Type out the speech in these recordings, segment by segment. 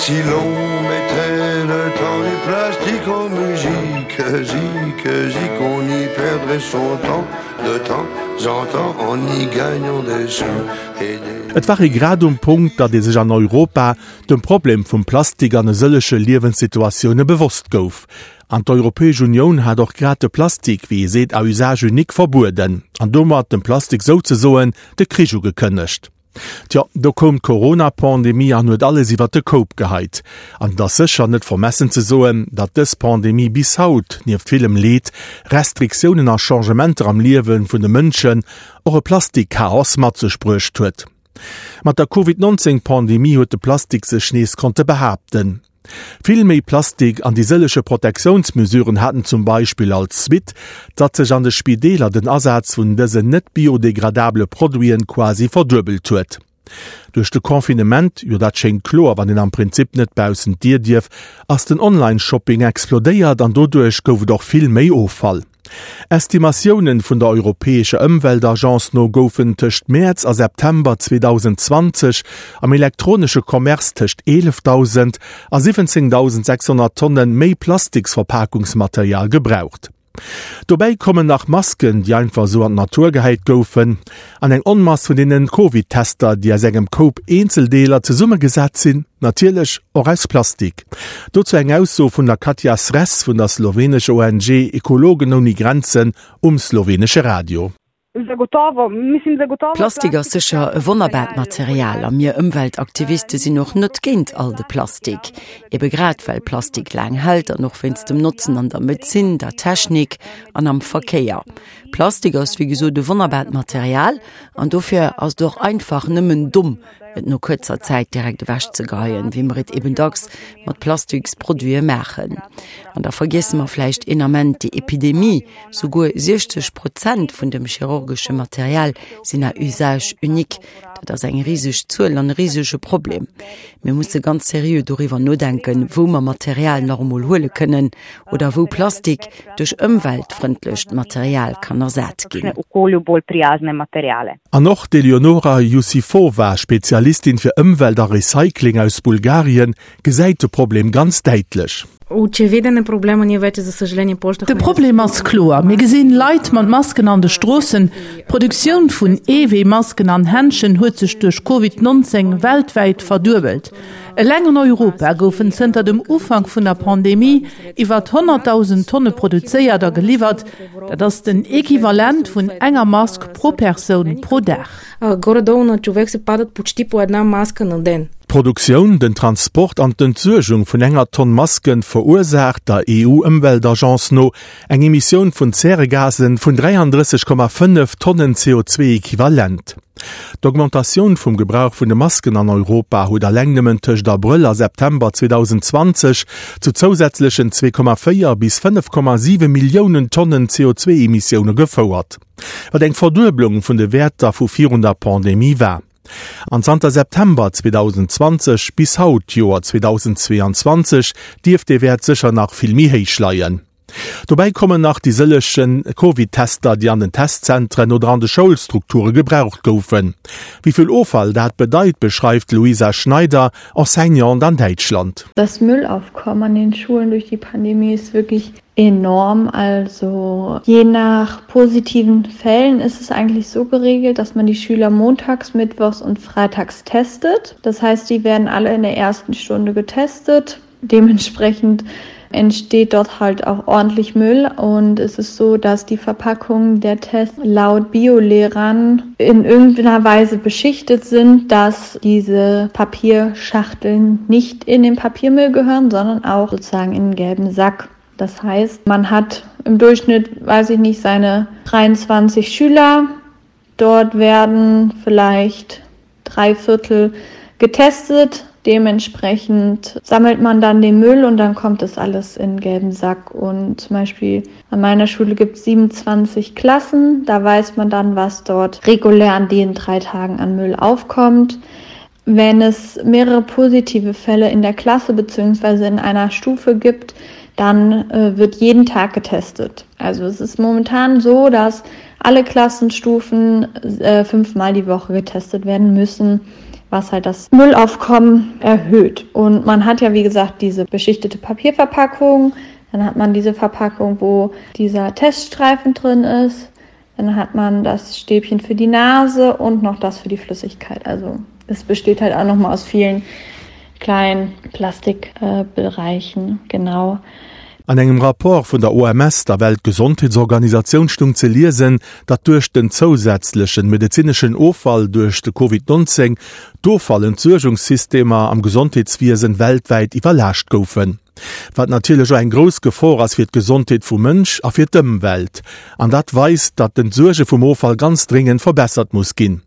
Si l'on mettait le temps du plastique en musique, zik, zik, on y perdrait son temps de temps en temps en y gagnant des sous et des. Et war ee grad um Punkt, datt ee sech an Europa dem Problem vum Plastik an e sëllege Liewenssituatioune bewosst gouf. An d'Europäesch Unioun hat och grad de Plastik, wéi ee seet, à usage unique verbueden an domat dem Plastik souzesoen de Krich ugekënnegt. Tjo, do koum d'Corona-Pandemie an huet alles iwwert de Koup geheit. An et ass sécher net vermessen ze soen, datt dës Pandemie bis haut, nieft villem Leed, Restriktiounen a Changementer am Liewe vun de Mënschen, och e Plastik-Chaos mat sech bruecht huet. Mat der Covid 19 Pandemie huet de Plastik sech nees konnte behaapten. Vill méi Plastik an déi sëllege Protektiounsmesuren haten zum Beispill als Suite, datt sech an de Spideeler den Asaz vun dësen net biodegradabele Produiten quasi verduebelt huet. Duerch de Confinement, jo dat schéngt kloer, wann een am Prinzip net baussent d'Dier dierf, ass den Online-Shopping explodéiert an doduerch gouf et och vill méi Offall. Estimatiounen vun der europäescher Ëmweltagence no goufen tëscht Mäerz a September 2020 am elektronesche Commerce tëscht 11.000 a 17.600 Tonne méi Plastiksverpakungsmaterial gebraucht. Dobäi kommen nach Masken, déi einfach esou an d'Natur gehäit goufen, an eng Onmass vun deenen Covid-Tester, déi aus engem Koup Eenzeldeeler zesummegesat sinn, natierlech och aus Plastik. Dozou eng Ausso vun der Katja Sres vun der slowenescher ONG Ekologen ouni Grenzen um slowenesche Radio. Plastik ass sécher e wonnerbaart Material a mir Ëmweltaktiviste sinn och net géint all de Plastik. Ebe grad well Plastik laang hält an och wéinst dem Notzen an der Medezin, der Technik an am Verkéier. Plastik ass wéi gesot e wonnerbaart Material an dofir ass et och einfach nëmmen domm, et no kuerzer Zäit direkt ewech ze geheien, wéi mer et eben dacks mat Plastiksproduite maachen. An da vergiesse mer vläicht een Ament déi Epidemie, Souguer 60 Prozent vun dem chirurgesche Material sinn à usage unique. Dat ass eng riseg Zuel an e risege Problem. Mir musse ganz seriö doriwwer nodenken, wou mer Material nach emol huele kënnen oder wou Plastik duerch ëmweltfrëndlecht Material kann ersat ginn. An och d'Eleonora Jussifova, Spezialistin fir Ëmwelt a Recycling aus Bulgarien, gesäit de Problem ganz däitlech. De Problem ass kloer, Mir gesinn Leit mat Masken an de Stroossen. D'Produktioun vun Eewee-Masken an Händschen huet sech duerch Covid 19 weltwäit verduebelt. Eleng an Europa goufen zënter dem Ufank vun der Pandemie iwwer 100.000 Tonne produzéiert a geliwwert. Dat ass den Equivalent vun enger Mask pro Persoun pro Dag. D'Produktioun, den Transport an d'Entsuergung vun enger Tonn Masken verursaacht der EU-Ëmweltagence no eng Emissioun vun Zäregasen vun 33,5 Tonnen CO2-Equivalent. D'Augmentatioun vum Gebrauch vun de Masken an Europa huet alleng nëmmen tëscht Abrëll a September 2020 zu zousätzlechen 2,4 bis 5,7 Milliounen Tonnen CO2-Emissioune gefouert, wat eng Verdueblung vun de Wäerter vu virun der Pandemie war. An zanter September 2020 bis haut, d'Joer 2022, dierft dee Wäert sécher nach vill méi héich leien. Dobäi kommen nach déi sëllege Covid-Tester, déi an den Testzentren oder an de Schoulstrukture gebraucht goufen. Wéi vill Offall dat bedeit, beschreift d'Luisa Schneider, Enseignante an Däitschland. Das Müllaufkommen an den Schulen durch die Pandemie ist wirklich enorm. Also je nach positiven Fällen ist es eigentlich so geregelt, dass man die Schüler montags, mittwochs und freitags testet. Das heißt, die werden alle in der ersten Stunde getestet. Dementsprechend entsteht dort halt auch ordentlich Müll und es ist so, dass die Verpackungen der Tests laut Biolehrern in irgendeiner Weise beschichtet sind, dass diese Papierschachteln nicht in den Papiermüll gehören, sondern auch sozusagen in den gelben Sack. Das heißt, man hat im Durchschnitt, weiß ich nicht, seine 23 Schüler. Dort werden vielleicht dreiviertel getestet. Dementsprechend sammelt man dann den Müll und dann kommt das alles in gelben Sack. Und zum Beispiel an meiner Schule gibt es 27 Klassen. Da weiß man dann, was dort regulär an den drei Tagen an Müll aufkommt. Wenn es mehrere positive Fälle in der Klasse bzw. in einer Stufe gibt, dann äh, wird jeden Tag getestet. Also es ist momentan so, dass alle Klassenstufen äh, fünfmal die Woche getestet werden müssen. Was halt das Müllaufkommen erhöht. Und man hat ja wie gesagt diese beschichtete Papierverpackung, dann hat man diese Verpackung, wo dieser Teststreifen drin ist. Dann hat man das Stäbchen für die Nase und noch das für die Flüssigkeit. Also es besteht halt auch noch mal aus vielen kleinen Plastikbereichen äh, genau. An engem Rapport vun der OMS, der Weltgesondheetsorganisatioun, stung ze liesen, datt duerch den zousätzlechen medezineschen Offall duerch de Covid 19 d'Offallentsuergungssystemer am Gesondheetswiesen weltwäit iwwerlaascht goufen. Wat natierlech och eng grouss Gefor ass fir d'Gesondheet vum Mënsch a fir d'Ëmwelt. An dat weist, datt d'Entsuerge vum Offall ganz dréngend verbessert muss ginn.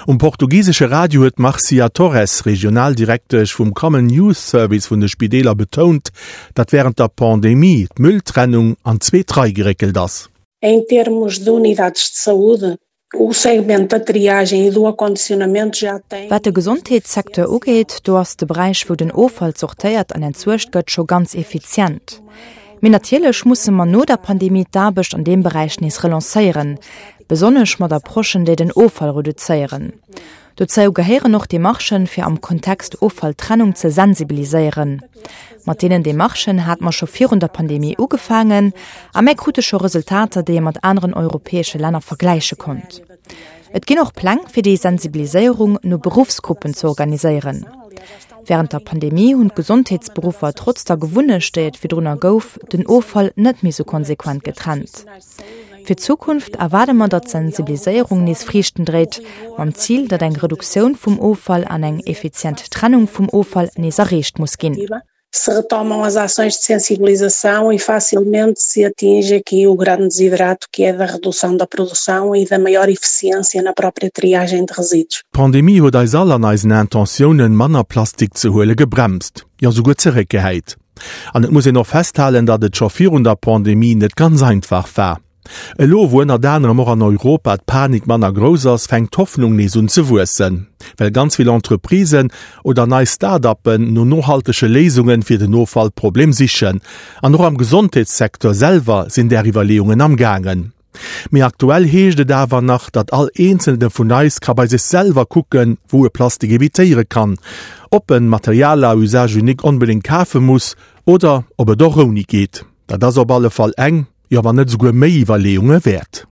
Um portugisesche Radio huet d'Marcia Torres, Regionaldirektesch vum Common Use Service vun de Spideeler betount, datt wärend der Pandemie d'Mülltrennung an zweet Rei geréckelt ass. Em termos de unidades de saúde, o segmento da triagem e do acondicionamento já tem. Wat de Gesondheetssecteur ugeet, do ass de Beräich, wou den Offall zortéiert an entsuergt gëtt, scho ganz effizient. Mee natierlech musse mer no der Pandemie d'Aarbecht an deem Beräich nees relancéieren, besonnesch mat Approchen, déi den Offall reduzéieren. Dozou gehéieren och Demarchen, fir am Kontext Offalltrennung ze sensibiliséieren. Mat deenen Demarchen hate mer scho virun der Pandemie ugefaangen a mär krute scho Resultater, déi ee mat aneren europäesche Länner vergläiche konnt. Et ginn och Pläng, fir déi Sensibiliséierung no Beruffsgruppen ze organiséieren. Wärend der Pandemie hunn d'Gesondheetsberuffer trotz der Gewunnecht, déi et virdrunner gouf, den Offall net méi sou konsequent getrennt. Fir d'Zukunft erwaarde mer, datt d'Sensibiliséierung nees Friichten dréit, mam Zil, datt eng Reduktioun vum Offall an eng effizient Trennung vum Offall nees erreecht muss ginn. Se retomam as ações de sensibilização e facilmente se atinge aqui o grande desiderato que é da redução da produção e da maior eficiência na própria triagem de resíduos. D'Pandemie huet eis all an eisen Intentiounen, manner Plastik ze huele gebremst, jo souguer zeréckgehäit. An et muss een och festhalen, datt et scho virun der Pandemie net ganz einfach war. Elo, wou ënnert anerem och an Europa d'Panik manner grouss ass, fänkt d'Hoffnung nees un ze wuessen, well ganz vill Entreprisen oder nei Start-uppen no nohaltege Léisunge fir den Offallproblem sichen. An och am Gesondheetssecteur selwer sinn där Iwwerleeungen am gaangen. Mee aktuell heescht et awer nach, datt all eenzelne vun eis ka bei sech selwer kucken, wou e Plastik evitéiere kann, ob en Material à usage unique onbedéngt kafe muss oder ob et och ouni geet. Dat ass op alle Fall eng, jo wann net esouguer méi Iwwerleeunge wäert.